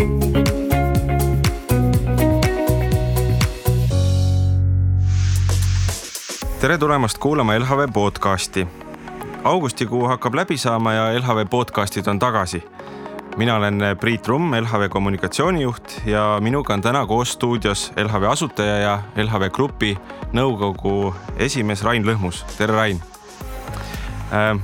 Tere tulemast kuulama LHV podcasti. Augustikuu hakkab läbi saama ja LHV podcastid on tagasi. Mina olen Priit Rumm, LHV kommunikatsioonijuht ja minuga on täna koos stuudios LHV asutaja ja LHV Grupi nõukogu esimees Rain Lõhmus. Tere Rain!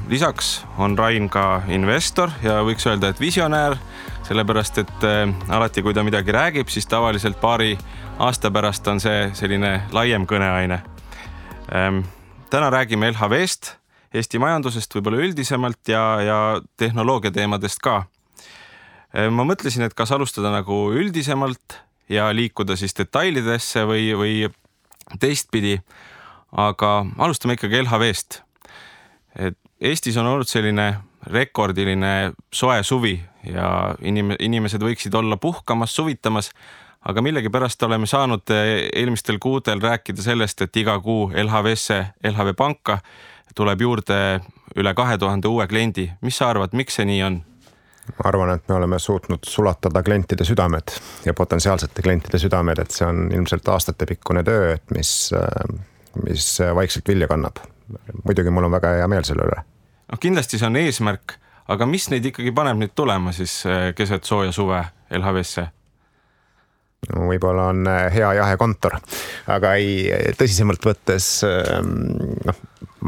Lisaks on Rain ka investor ja võiks öelda, et visionäär, sellepärast et alati kui ta midagi räägib, siis tavaliselt paari aasta pärast on see selline laiem kõneaine. Täna räägime LHV-st, Eesti majandusest võib-olla üldisemalt ja tehnoloogia teemadest ka. Ma mõtlesin, et kas alustada nagu üldisemalt ja liikuda siis detailidesse või teistpidi, aga alustame ikkagi LHV-st. Eestis on olnud selline rekordiline soe suvi ja inimesed võiksid olla puhkamas, suvitamas, aga millegipärast oleme saanud eelmistel kuudel rääkida sellest, et iga kuu LHV-sse, LHV panka tuleb juurde üle 2000 uue kliendi. Mis sa arvad, miks see nii on? Ma arvan, et me oleme suutnud sulatada klientide südamed ja potentsiaalsete klientide südamed, et see on ilmselt aastatepikkune töö, et mis vaikselt vilja kannab. Muidugi mul on väga hea meel selle üle. No, kindlasti see on eesmärk, aga mis neid ikkagi paneb nüüd tulema siis keset sooja suve LHV-sse? No, võib-olla on hea jahekontor, aga tõsisemalt võttes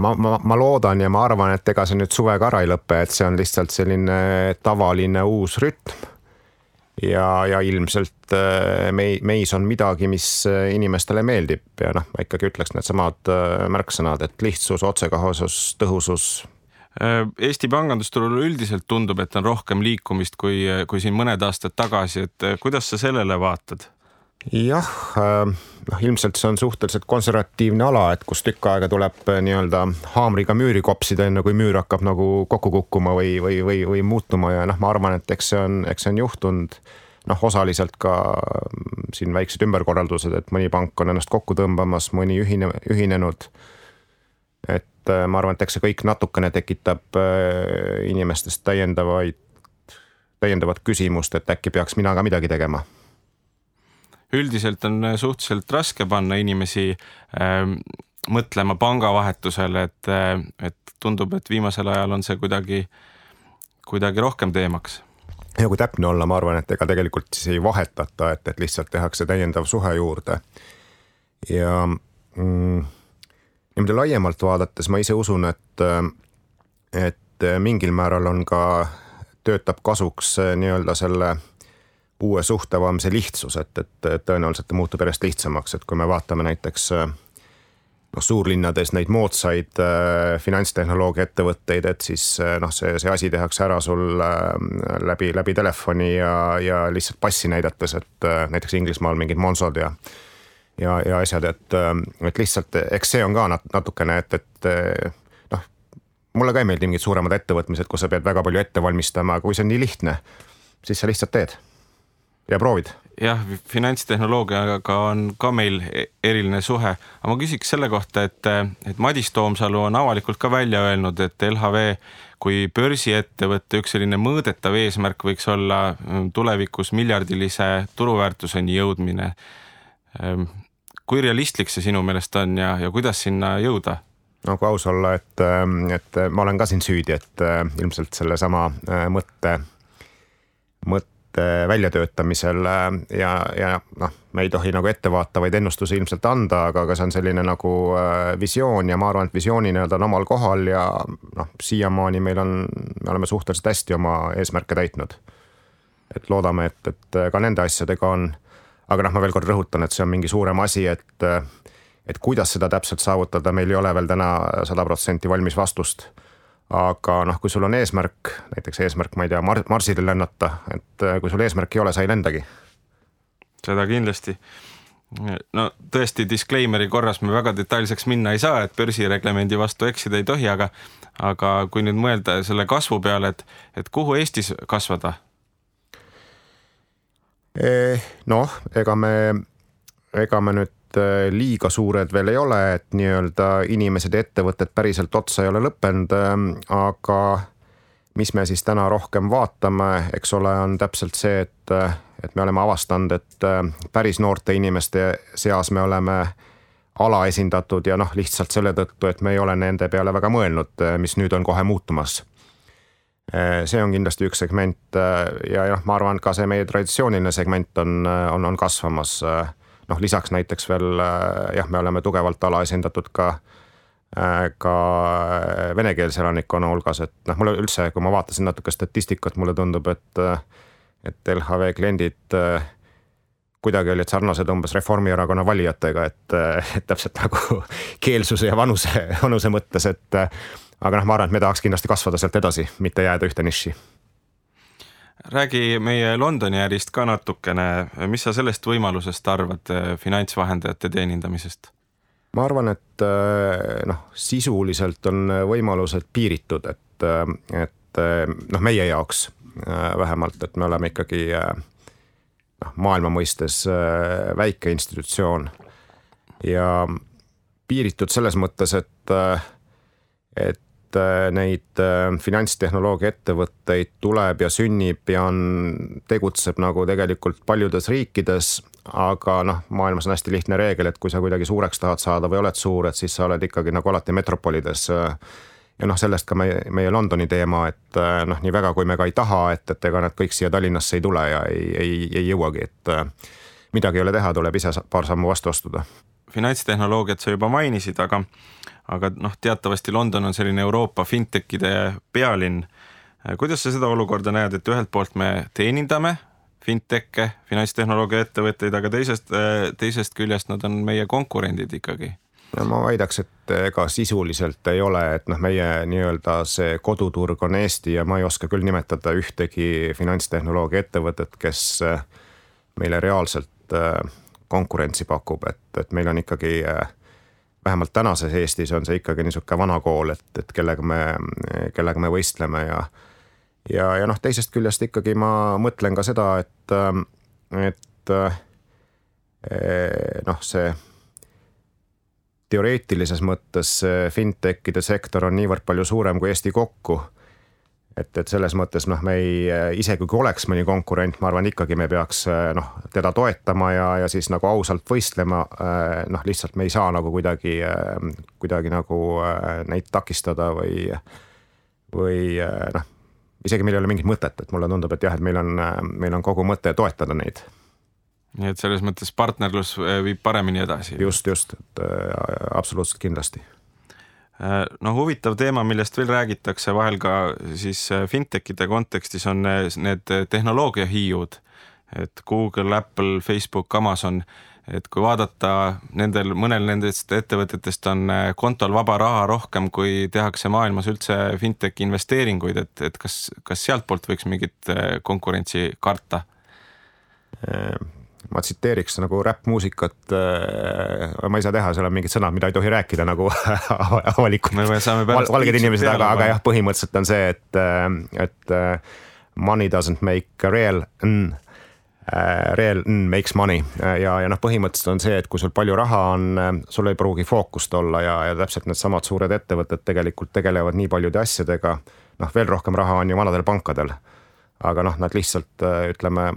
ma loodan ja ma arvan, et ega see nüüd suvega ära ei lõppe, et see on lihtsalt selline tavaline uus rütm ja ilmselt meis on midagi, mis inimestele meeldib ja ma ikkagi ütleks need samad märksõnad, et lihtsus, otsekohesus, tõhusus. Eesti pangandusturul üldiselt tundub, et on rohkem liikumist kui siin mõned aastad tagasi, et kuidas sa sellele vaatad? Jah, ilmselt see on suhteliselt konservatiivne ala, et kus tükk aega tuleb nii-öelda haamriga müüri kopsida, enne kui müür hakkab nagu kokku kukkuma või muutuma ja ma arvan, et eks see on juhtunud osaliselt ka siin väiksed ümberkorraldused, et mõni pank on ennast kokku tõmbamas, mõni ühinenud. Et ma arvan, et eks see kõik natukene tekitab inimestest täiendavat küsimust, et äkki peaks mina ka midagi tegema. Üldiselt on suhteliselt raske panna inimesi mõtlema pangavahetusele, et tundub, et viimasel ajal on see kuidagi rohkem teemaks. Ja kui täpne olla, ma arvan, et ega tegelikult siis ei vahetata, et lihtsalt tehakse täiendav suhe juurde. Ja niimoodi laiemalt vaadates ma ise usun, et mingil määral on ka töötab kasuks nii-öelda selle uue suhtevaamse lihtsus, et tõenäoliselt ta muutub järjest lihtsamaks, et kui me vaatame näiteks suurlinnades neid moodsaid finantstehnoloogia ettevõtteid, et siis see asi tehakse ära sul läbi telefoni ja lihtsalt passi näidates, et näiteks Inglismaal mingid Monsod ja asjad, et lihtsalt, eks see on ka natukene, et mulle ka ei meeldi mingid suuremad ettevõtmised, kus sa pead väga palju ette valmistama, kui see on nii lihtne, siis sa lihtsalt teed ja proovid. Jah, finantstehnoloogiaga on ka meil eriline suhe, aga ma küsiks selle kohta, et Madis Toomsalu on avalikult ka välja öelnud, et LHV kui börsiettevõtte üks selline mõõdetav eesmärk võiks olla tulevikus miljardilise turuväärtuseni jõudmine. Kui realistlik see sinu meelest on ja kuidas sinna jõuda? No kui aus olla, et ma olen ka siin süüdi, et ilmselt selle sama mõtte väljatöötamisel ja me ei tohi nagu ettevaatavaid ennustusi ilmselt anda, aga see on selline nagu visioon ja ma arvan, et visiooni on omal kohal ja siiamaani me oleme suhteliselt hästi oma eesmärke täitnud. Et loodame, et ka nende asjadega on, aga ma veel kord rõhutan, et see on mingi suurem asi, et kuidas seda täpselt saavutada, meil ei ole veel täna 100% valmis vastust. Aga kui sul on eesmärk, näiteks eesmärk, ma ei tea, Marsile lennata, et kui sul eesmärk ei ole, sa ei lendagi. Seda kindlasti. No tõesti, disclaimeri korras me väga detailseks minna ei saa, et börsireglemendi vastu eksida ei tohi, aga kui nüüd mõelda selle kasvu peale, et kuhu Eestis kasvada? Ega me nüüd liiga suured veel ei ole, et nii-öelda inimesed ja ettevõtted päriselt otsa ei ole lõppenud, aga mis me siis täna rohkem vaatame, eks ole, on täpselt see, et me oleme avastanud, et päris noorte inimeste seas me oleme alaesindatud ja noh, lihtsalt selle tõttu, et me ei ole nende peale väga mõelnud, mis nüüd on kohe muutumas. See on kindlasti üks segment ja ma arvan, ka see meie traditsiooniline segment on kasvamas. Noh, lisaks näiteks veel me oleme tugevalt alaesindatud ka venekeelse elanikkonna hulgas, et noh, mulle üldse, kui ma vaatasin natuke statistikat, mulle tundub, et LHV kliendid kuidagi olid sarnased umbes Reformierakonna valijatega, et täpselt nagu keelsuse ja vanuse mõttes, aga ma arvan, et me tahaks kindlasti kasvada sealt edasi, mitte jääda ühte niši. Räägi meie Londoni ärist ka natukene, mis sa sellest võimalusest arvad finantsvahendajate teenindamisest? Ma arvan, et sisuliselt on võimalused piiritud, et meie jaoks vähemalt, et me oleme ikkagi maailma mõistes väike institutsioon ja piiritud selles mõttes, et neid finantstehnoloogia ettevõtteid tuleb ja sünnib ja tegutseb nagu tegelikult paljudes riikides, aga maailmas on hästi lihtne reegel, et kui sa kuidagi suureks tahad saada või oled suur, et siis sa oled ikkagi nagu alati metropolides. Ja sellest ka meie Londoni teema, et nii väga kui me ka ei taha, et ega nad kõik siia Tallinnasse ei tule ja ei jõuagi, et midagi ei ole teha, tuleb ise paar sammu vastu astuda. Finantstehnoloogiat sa juba mainisid, aga teatavasti London on selline Euroopa fintechide pealinn. Kuidas sa seda olukorda näed, et ühelt poolt me teenindame finteche, finantstehnoloogia ettevõtteid, aga teisest küljest nad on meie konkurendid ikkagi? Ja ma väidaks, et ega sisuliselt ei ole, et meie nii-öelda see koduturg on Eesti ja ma ei oska küll nimetada ühtegi finantstehnoloogia ettevõtet, kes meile reaalselt konkurentsi pakub, et meil on ikkagi, vähemalt tänases Eestis on see ikkagi niisugune vana kool, et kellega me võistleme ja teisest küljest ikkagi ma mõtlen ka seda, et see teoreetilises mõttes fintechide sektor on niivõrd palju suurem kui Eesti kokku, et selles mõttes me isegi kui oleks mõni konkurent, ma arvan ikkagi me peaks teda toetama ja siis nagu ausalt võistlema, lihtsalt me ei saa nagu kuidagi nagu neid takistada või isegi meil ei ole mingit mõtet, et mulle tundub, et jah, et meil on kogu mõte toetada neid. Nii et selles mõttes partnerlus viib paremini edasi. Just, et absoluutselt kindlasti. Huvitav teema, millest veel räägitakse vahel ka siis fintechide kontekstis on need tehnoloogiahiiud, et Google, Apple, Facebook, Amazon, et kui vaadata mõnel nendest ettevõtetest on kontol vaba raha rohkem, kui tehakse maailmas üldse fintech investeeringuid, et kas sealt poolt võiks mingit konkurentsi karta? Ma tsiteeriks nagu räppmuusikat, ma ei saa teha, seal on mingid sõnad, mida ei tohi rääkida nagu avalikult valged inimesed, aga jah, põhimõtteliselt on see, et money doesn't make real makes money ja põhimõtteliselt on see, et kui sul palju raha on, sul ei pruugi fookust olla ja täpselt need samad suured ettevõtted tegelikult tegelevad nii paljude asjadega, veel rohkem raha on ju vanadel pankadel, aga nad lihtsalt ütleme,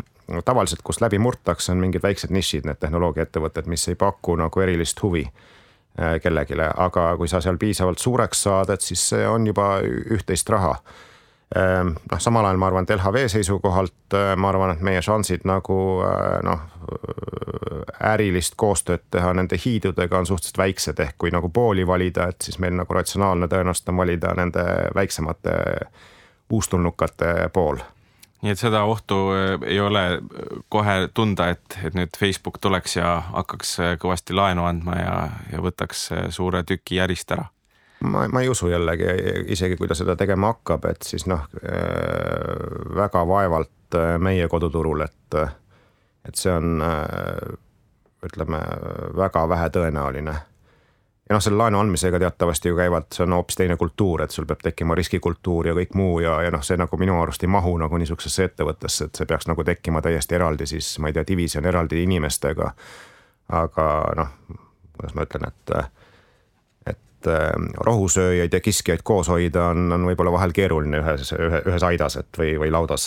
tavaliselt, kus läbi murtakse, on mingid väiksed nišid, need tehnoloogiaettevõtted, mis ei paku nagu erilist huvi kellegile, aga kui sa seal piisavalt suureks saad, et siis see on juba üht-teist raha. Samal ajal ma arvan, et LHV seisukohalt ma arvan, et meie šansid nagu ärilist koostööd teha nende hiidudega on suhteliselt väiksed, ehk kui nagu pooli valida, et siis meil nagu ratsionaalne tõenäoliselt on valida nende väiksemate uustulnukate pool. Nii et seda ohtu ei ole kohe tunda, et nüüd Facebook tuleks ja hakkaks kõvasti laenu andma ja võtaks suure tüki järist ära? Ma ei usu jällegi, isegi kui ta seda tegema hakkab, et siis väga vaevalt meie koduturul, et see on, ütleme, väga vähe tõenäoline. Ja selle laenu andmisega teatavasti ju käivad, see on hoopis teine kultuur, et sul peab tekkima riskikultuur ja kõik muu ja see nagu minu arust ei mahu nagu niisugusesse ettevõttesse, et see peaks nagu tekkima täiesti eraldi siis, ma ei tea, division eraldi inimestega. Aga kuidas ma ütlen, et rohusööjaid ja kiskjaid koos hoida on võib-olla vahel keeruline ühes aidas või laudas.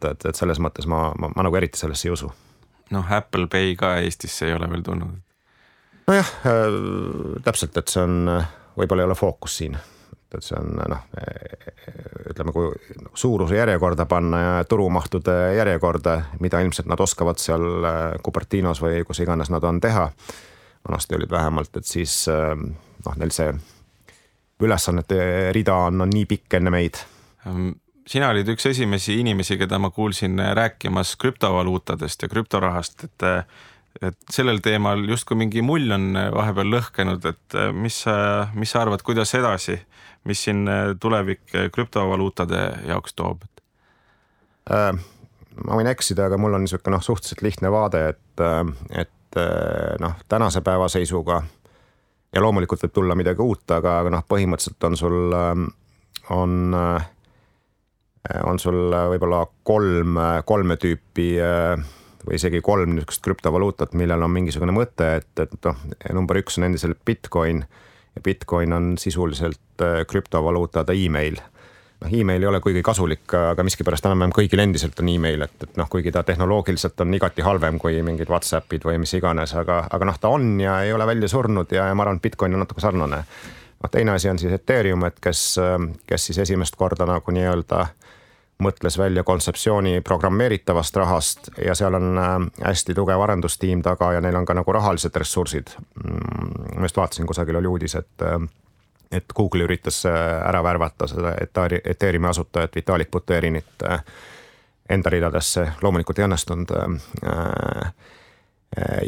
Et selles mõttes ma nagu eriti sellesse ei usu. Noh, Apple Pay ka Eestisse ei ole veel tulnud. Nojah, täpselt, et see on, võib-olla ei ole fookus siin. Et see on, ütleme, kui suuruse järjekorda panna ja turumahtude järjekorda, mida ilmselt nad oskavad seal Cupertinos või kus iganes nad on teha. Vanasti olid vähemalt, et siis neil see ülesannete rida on nii pikk enne meid. Sina olid üks esimesi inimesi, keda ma kuulsin rääkimas krüptovaluutadest ja krüptorahast, et sellel teemal justkui mingi mull on vahepeal lõhkenud, et mis sa arvad, kuidas edasi, mis siin tulevik krüptovaluutade jaoks toob? Ma võin eksida, aga mul on niisugune suhteliselt lihtne vaade, et tänase päeva seisuga ja loomulikult võib tulla midagi uut, aga põhimõtteliselt on sul võib-olla kolme tüüpi või isegi 3 niisugust krüptovaluutat, millel on mingisugune mõte, et number 1 on endiselt Bitcoin ja Bitcoin on sisuliselt krüptovaluutada email. Email ei ole kuigi kasulik, aga miskipärast enam kõigil endiselt on email, et kuigi ta tehnoloogiliselt on igati halvem kui mingid WhatsAppid või mis iganes, aga ta on ja ei ole välja surnud ja ma arvan, et Bitcoin on natuke sarnane. Teine asi on siis Ethereum, et kes siis esimest korda nagu nii-öelda mõtles välja kontseptsiooni programmeeritavast rahast ja seal on hästi tugev arendustiim taga ja neil on ka nagu rahalised ressursid. Ma just vaatasin, kusagil oli uudis, et Google üritas ära värvata seda Ethereumi asutajat Vitalik Buterinit enda ridadesse, loomulikult ei õnnestunud.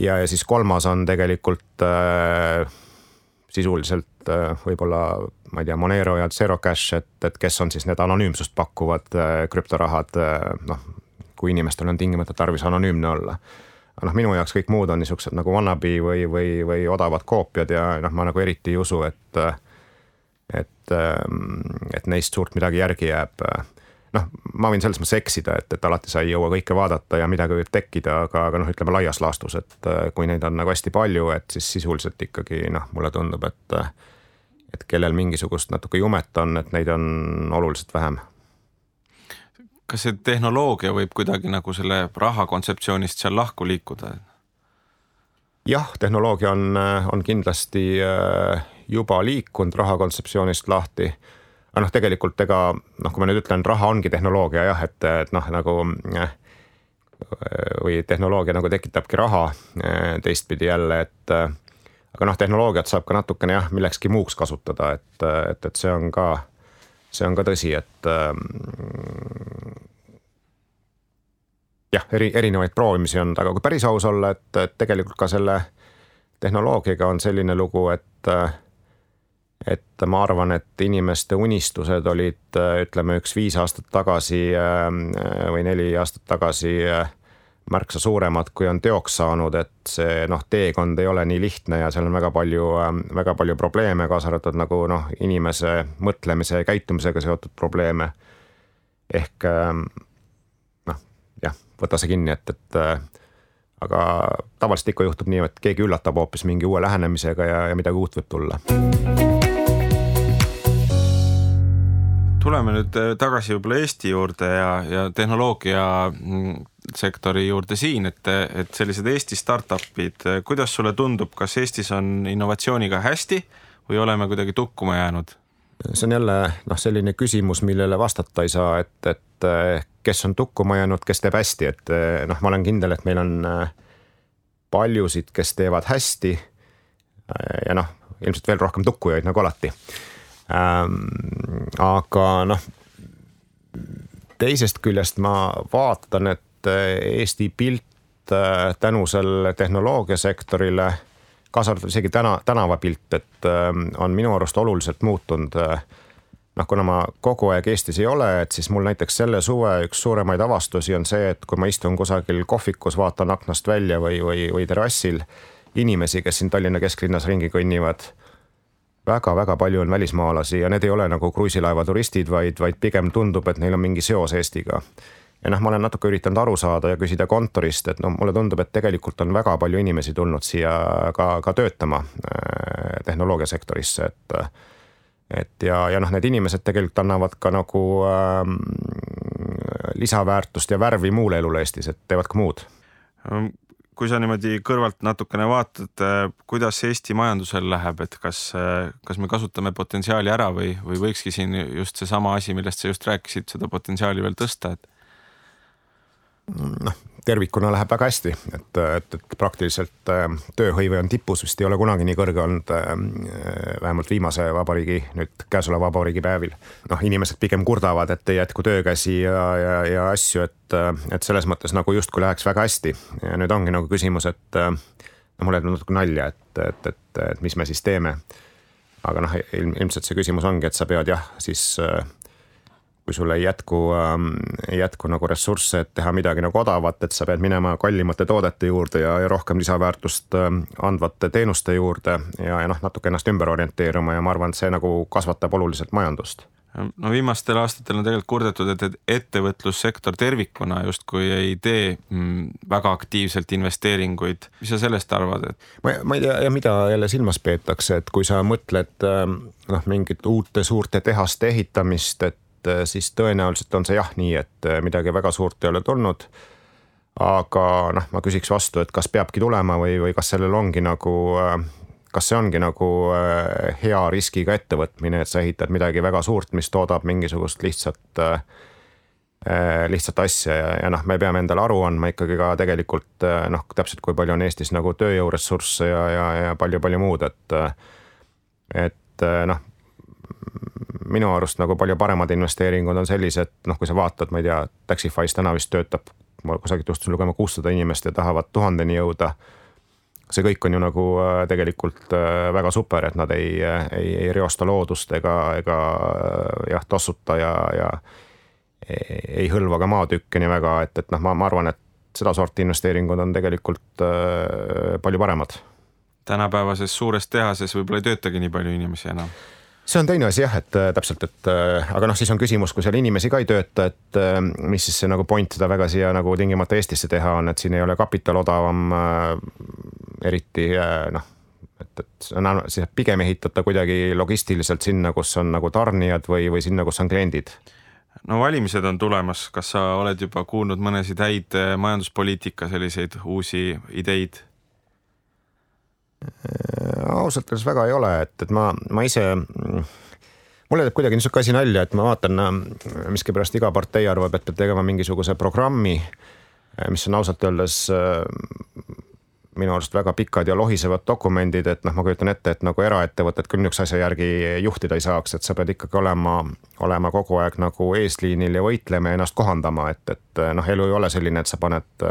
Ja siis kolmas on tegelikult sisuliselt võib-olla, ma ei tea, Monero ja Zero Cash, et kes on siis need anonüümsust pakkuvad krüptorahad, kui inimestel on tingimata tarvis anonüümne olla. Minu jaoks kõik muud on niisugused nagu wannabe või odavad koopiad ja ma nagu eriti ei usu, et neist suurt midagi järgi jääb. Ma võin selles mõttes eksida, et alati sa ei jõua kõike vaadata ja midagi võib tekkida, aga ütleme laias laastus, et kui neid on nagu hästi palju, et siis sisuliselt ikkagi mulle tundub, et kellel mingisugust natuke jumet on, et neid on oluliselt vähem. Kas see tehnoloogia võib kuidagi nagu selle raha kontseptsioonist seal lahku liikuda? Jah, tehnoloogia on kindlasti juba liikunud raha kontseptsioonist lahti. Aga tegelikult kui ma nüüd ütlen, raha ongi tehnoloogia jah, et nagu või tehnoloogia nagu tekitabki raha teistpidi jälle, aga tehnoloogiat saab ka natukene jah, millekski muuks kasutada, et see on ka tõsi, et jah, erinevaid proovimisi on, aga kui päris aus olla, et tegelikult ka selle tehnoloogiaga on selline lugu, et ma arvan, et inimeste unistused olid, ütleme, 5 aastat tagasi või 4 aastat tagasi märksa suuremad, kui on teoks saanud, et see teekond ei ole nii lihtne ja seal on väga palju probleeme, kaasa arvatud nagu inimese mõtlemise ja käitumisega seotud probleeme. Ehk võta see kinni, et aga tavaliselt ikka juhtub nii, et keegi üllatab hoopis mingi uue lähenemisega ja midagi uut võib tulla. Tuleme nüüd tagasi võib-olla Eesti juurde ja tehnoloogia sektori juurde siin, et sellised Eesti startupid, kuidas sulle tundub, kas Eestis on innovatsiooniga hästi või oleme kuidagi tukkuma jäänud? See on jälle selline küsimus, millele vastata ei saa, et kes on tukkuma jäänud, kes teeb hästi, et ma olen kindel, et meil on paljusid, kes teevad hästi ja ilmselt veel rohkem tukkujaid nagu alati. Aga teisest küljest ma vaatan, et Eesti pilt tänu selle tehnoloogiasektorile, kaasa arvatud isegi tänavapilt, et on minu arust oluliselt muutunud. Kuna ma kogu aeg Eestis ei ole, et siis mul näiteks selle suve üks suuremaid avastusi on see, et kui ma istun kusagil kohvikus, vaatan aknast välja või terrassil inimesi, kes siin Tallinna kesklinnas ringi kõnnivad, väga palju on välismaalasi ja need ei ole nagu kruiisilaeva turistid, vaid pigem tundub, et neil on mingi seos Eestiga. ja noh, ma olen natuke üritanud aru saada ja küsida kontorist, et no mulle tundub, et tegelikult on väga palju inimesi tulnud siia ka töötama tehnoloogiasektorisse, ja noh, need inimesed tegelikult annavad ka nagu lisaväärtust ja värvi muule elule Eestis, et teevad ka muud. Kui sa niimoodi kõrvalt natukene vaatad, kuidas Eesti majandusel läheb, et kas me kasutame potentsiaali ära või võikski siin just see sama asi, millest sa just rääkisid, seda potentsiaali veel tõsta, et noh, tervikuna läheb väga hästi, et praktiliselt tööhõive on tipus, vist ei ole kunagi nii kõrge olnud, vähemalt viimase vabariigi, nüüd käesoleva vabariigi päevil. Noh, inimesed pigem kurdavad, et ei jätku töökäsi ja asju, et selles mõttes nagu justkui läheks väga hästi. Ja nüüd ongi nagu küsimus, et mulle jääb natuke nalja, et mis me siis teeme. Aga noh, ilmselt see küsimus ongi, et sa pead siis kui sulle ei jätku nagu ressursse, et teha midagi nagu odavat, et sa pead minema kallimate toodete juurde ja rohkem lisaväärtust andvate teenuste juurde ja noh, natuke ennast ümber orienteeruma ja ma arvan, et see nagu kasvatab oluliselt majandust. No viimastel aastatel on tegelikult kurdetud, et ettevõtlussektor tervikuna justkui ei tee väga aktiivselt investeeringuid. Mis sa sellest arvad? Ma ei tea, ja mida jälle silmas peetakse, et kui sa mõtled mingit uute suurte tehaste ehitamist, et siis tõenäoliselt on see jah nii, et midagi väga suurt ei ole tulnud. Aga noh, ma küsiks vastu, et kas peabki tulema või kas sellel ongi nagu, kas see ongi nagu hea riskiga ettevõtmine, et sa ehitad midagi väga suurt, mis toodab mingisugust lihtsat asja ja noh, me peame endale aru andma ikkagi ka tegelikult noh, täpselt kui palju on Eestis nagu tööjõuressursse ja palju muud, et noh, minu arust nagu palju paremad investeeringud on sellised, noh, kui sa vaatad, ma ei tea, Taxify's täna vist töötab, ma kusagilt juhtusin lugema 600 inimest ja tahavad 1000-ni jõuda. See kõik on ju nagu tegelikult väga super, et nad ei reosta loodust ega jah, tossuta ja ei hõlva ka maatükke nii väga, et noh, ma arvan, et seda sorti investeeringud on tegelikult palju paremad. Tänapäevases suures tehases võib-olla ei töötagi nii palju inimesi enam. See on teine asi jah, et täpselt, aga noh, siis on küsimus, kui seal inimesi ka ei tööta, et mis siis see nagu point seda väga siia nagu tingimata Eestisse teha on, et siin ei ole kapital odavam eriti noh, et siis pigem ehitada kuidagi logistiliselt sinna, kus on nagu tarnijad või sinna, kus on kliendid. No valimised on tulemas, kas sa oled juba kuulnud mõnesid häid majanduspoliitika selliseid uusi ideid? Ausalt öeldes väga ei ole, et ma ise, mulle teeb kuidagi niisugune asi nalja, et ma vaatan, miskipärast iga partei arvab, et peab tegema mingisuguse programmi, mis on ausalt öeldes minu arust väga pikad ja lohisevad dokumendid, et noh, ma kujutan ette, et nagu eraettevõtted küll niisuguse asja järgi juhtida ei saaks, et sa pead ikkagi olema kogu aeg nagu eesliinil ja võitlema ja ennast kohandama, et noh, elu ei ole selline, et sa paned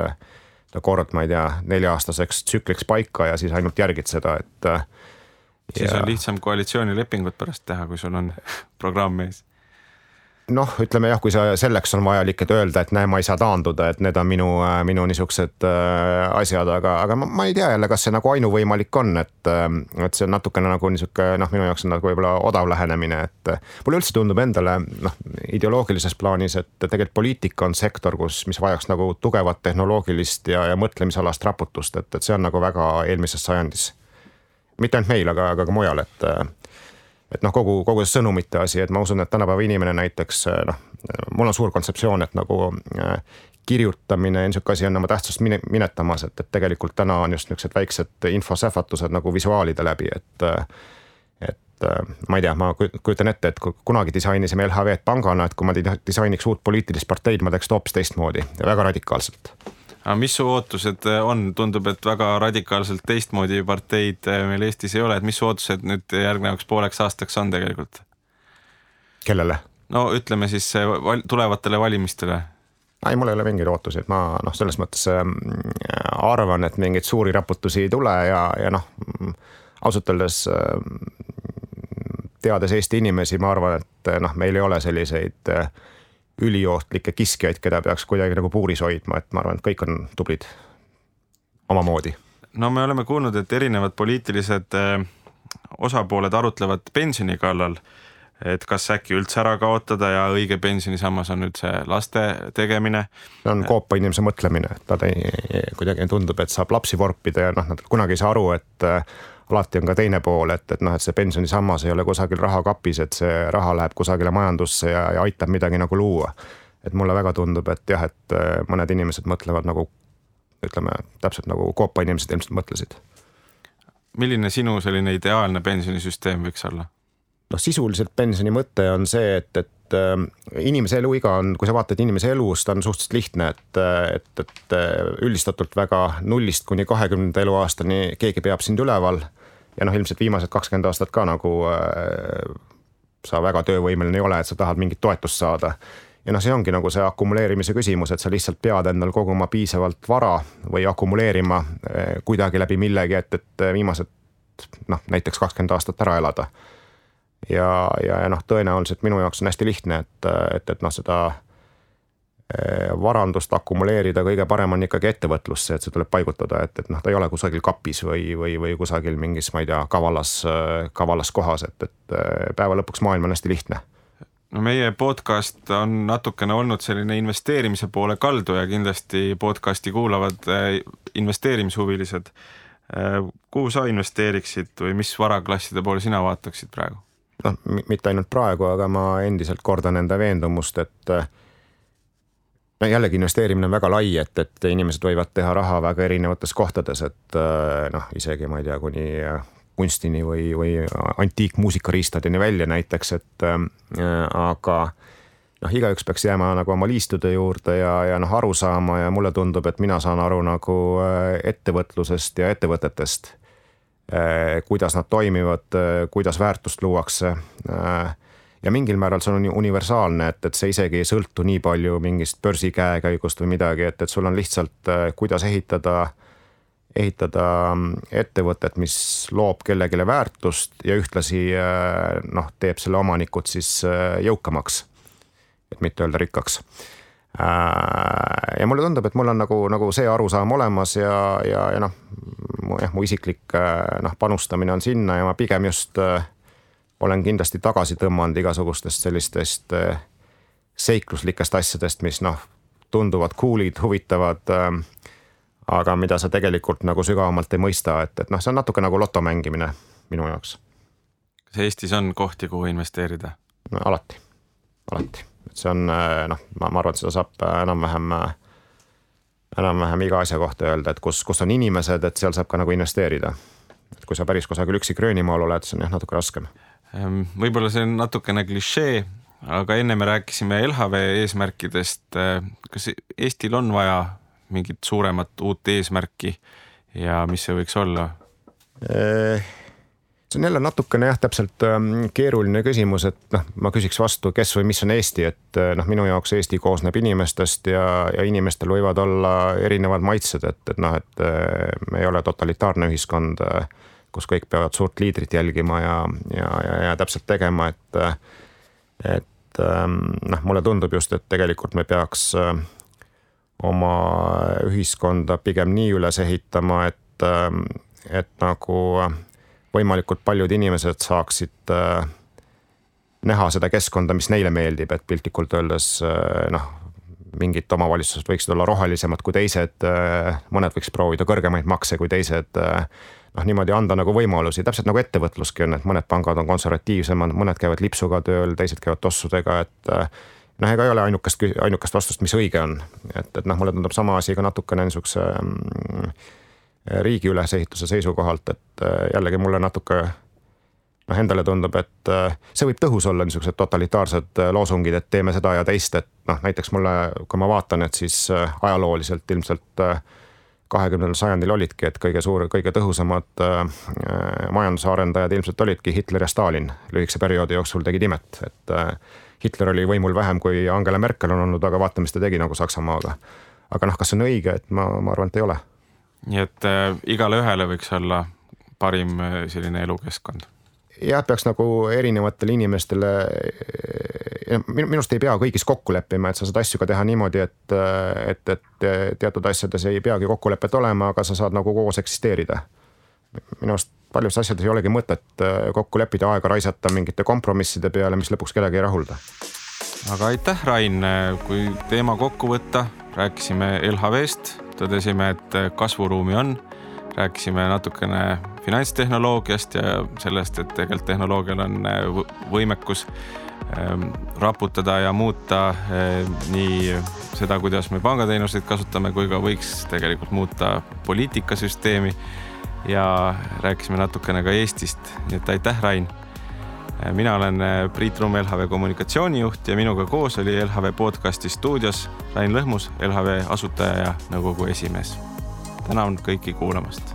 kord, ma ei tea, 4-aastaseks tsükliks paika ja siis ainult järgid seda, et siis on lihtsam koalitsioonilepingut pärast teha, kui sul on programm ees. Noh, ütleme jah, kui selleks on vajalik, et öelda, et näe, ma ei saa taanduda, et need on minu niisugused asjad, aga ma ei tea jälle, kas see nagu ainuvõimalik on, et see on natukene nagu niisugune, noh, minu jaoks on nagu võib-olla odav lähenemine, et mulle üldse tundub endale, noh, ideoloogilises plaanis, et tegelikult poliitika on sektor, mis vajaks nagu tugevat tehnoloogilist ja mõtlemisalast raputust, et see on nagu väga eelmises sajandis. Mitte ainult meil, aga ka mujal, et noh, kogu see sõnumite asi, et ma usun, et tänapäeva inimene näiteks, noh, mul on suur kontseptsioon, et nagu kirjutamine ja niisugune asi on oma tähtsust minetamas, et tegelikult täna on just niisugused väiksed infosähvatused nagu visuaalide läbi, et ma ei tea, ma kujutan ette, et kunagi disainisime LHV-d pangana, et kui ma disainiks uut poliitilist parteid, ma teeks hoopis teistmoodi ja väga radikaalselt. Aga mis su ootused on? Tundub, et väga radikaalselt teistmoodi parteid meil Eestis ei ole, et mis su ootused nüüd järgnevaks pooleks aastaks on tegelikult? Kellele? No ütleme siis tulevatele valimistele. Ei, mul ei ole mingeid ootusi, et ma selles mõttes arvan, et mingeid suuri raputusi ei tule ja noh, ausalt öeldes teades Eesti inimesi, ma arvan, et noh, meil ei ole selliseid üliohtlikke kiskjaid, keda peaks kuidagi nagu puuris hoidma, et ma arvan, et kõik on tublid omamoodi. No me oleme kuulnud, et erinevad poliitilised osapooled arutlevad pensioni kallal. et kas äkki üldse ära kaotada ja õige pensionisammas on üldse laste tegemine. See on koopa inimese mõtlemine, et ta kuidagi tundub, et saab lapsi vorpida ja nad kunagi ei saa aru, et alati on ka teine pool, et see pensionisammas ei ole kusagil rahakapis, et see raha läheb kusagile majandusse ja aitab midagi nagu luua. Et mulle väga tundub, et jah, et mõned inimesed mõtlevad nagu, ütleme, täpselt nagu koopa inimesed ilmselt mõtlesid. Milline sinu selline ideaalne pensionisüsteem võiks olla? Sisuliselt pensioni mõte on see, et inimese eluiga on, kui sa vaatad inimese elust, on suhteliselt lihtne, et üldistatult väga 0 kuni 20 eluaastani keegi peab sind üleval ja ilmselt viimased 20 aastat ka nagu sa väga töövõimeline ei ole, et sa tahad mingit toetust saada. Ja see ongi nagu see akumuleerimise küsimus, et sa lihtsalt pead endal koguma piisavalt vara või akumuleerima kuidagi läbi millegi, et viimased näiteks 20 aastat ära elada. Ja tõenäoliselt minu jaoks on hästi lihtne, et seda varandust akumuleerida kõige parem on ikkagi ettevõtlusse, et see tuleb paigutada, et ta ei ole kusagil kapis või kusagil mingis, ma ei tea, kavalas kohas, et päeva lõpuks maailm on hästi lihtne. No meie podcast on natukene olnud selline investeerimise poole kaldu ja kindlasti podcasti kuulavad investeerimishuvilised. Kuhu sa investeeriksid või mis varaklasside poole sina vaataksid praegu? Mitte ainult praegu, aga ma endiselt kordan enda veendumust, et jällegi investeerimine on väga lai, et inimesed võivad teha raha väga erinevates kohtades, et isegi ma ei tea, kuni kunstini või antiikmuusikariistadeni välja näiteks, aga igaüks peaks jääma nagu oma liistude juurde ja aru saama ja mulle tundub, et mina saan aru nagu ettevõtlusest ja ettevõtetest, kuidas nad toimivad, kuidas väärtust luuakse ja mingil määral see on universaalne, et see isegi ei sõltu nii palju mingist börsi käekäigust või midagi, et sul on lihtsalt kuidas ehitada ettevõtet, mis loob kellegile väärtust ja ühtlasi teeb selle omanikud siis jõukamaks, et mitte öelda rikkaks. Ja mulle tundub, et mul on nagu see arusaam olemas ja mu isiklik panustamine on sinna ja ma pigem just olen kindlasti tagasi tõmmanud igasugustest sellistest seikluslikest asjadest, mis tunduvad cool'id, huvitavad, aga mida sa tegelikult nagu sügavamalt ei mõista, et see on natuke nagu loto mängimine minu jaoks. Kas Eestis on kohti, kuhu investeerida? Alati. Et see on, ma arvan, et seda saab enam-vähem iga asja kohta öelda, et kus on inimesed, et seal saab ka nagu investeerida. Et kui sa päris kusagil üksi Gröönimaal oled, see on natuke raskem. Võib-olla see on natukene klišee, aga enne me rääkisime LHV eesmärkidest. Kas Eestil on vaja mingit suuremat uut eesmärki ja mis see võiks olla? See on jälle natukene täpselt keeruline küsimus, et ma küsiks vastu, kes või mis on Eesti, et minu jaoks Eesti koosneb inimestest ja inimestel võivad olla erinevad maitsed, et me ei ole totalitaarne ühiskond, kus kõik peavad suurt liidrit jälgima ja täpselt tegema, et mulle tundub just, et tegelikult me peaks oma ühiskonda pigem nii üles ehitama, et nagu võimalikult paljud inimesed saaksid näha seda keskkonda, mis neile meeldib, et piltlikult öeldes mingid omavalitsused võiksid olla rohelisemad kui teised, mõned võiks proovida kõrgemaid makse kui teised, niimoodi anda nagu võimalusi, täpselt nagu ettevõtluski on, et mõned pangad on konservatiivsemad, mõned käivad lipsuga tööl, teised käivad tossudega, et ega ei ole ainukest vastust, mis õige on, et mulle tundub sama asi ka natukene niisuguse riigi ülesehituse seisukohalt, et jällegi mulle natuke endale tundub, et see võib tõhus olla niisugused totalitaarsed loosungid, et teeme seda ja teist, et näiteks mulle, kui ma vaatan, et siis ajalooliselt ilmselt 20. sajandil olidki, et kõige tõhusamad majanduse arendajad ilmselt olidki Hitler ja Stalin. Lühikese perioodi jooksul tegid imet, et Hitler oli võimul vähem kui Angela Merkel on olnud, aga vaata, mis ta tegi nagu Saksamaaga. Aga kas see on õige, et ma arvan, et ei ole. Nii et igale ühele võiks olla parim selline elukeskkond? Jah, peaks nagu erinevatele inimestele, minust ei pea kõigis kokku leppima, et sa saad asju ka teha niimoodi, et teatud asjades ei peagi kokkulepet olema, aga sa saad nagu koos eksisteerida. Minust paljus asjades ei olegi mõtet kokku leppida, aega raisata mingite kompromisside peale, mis lõpuks kedagi ei rahulda. Aga aitäh, Rain, kui teema kokku võtta, rääkisime LHV-st, tõdesime, et kasvuruumi on, rääkisime natukene finantstehnoloogiast ja sellest, et tegelikult tehnoloogial on võimekus raputada ja muuta nii seda, kuidas me pangateenuseid kasutame, kui ka võiks tegelikult muuta poliitikasüsteemi ja rääkisime natukene ka Eestist. Nii et aitäh, Rain. Mina olen Priit Rumm, LHV kommunikatsioonijuht ja minuga koos oli LHV podcasti stuudios Rain Lõhmus, LHV asutaja ja nõukogu esimees. Tänan kõiki kuulamast.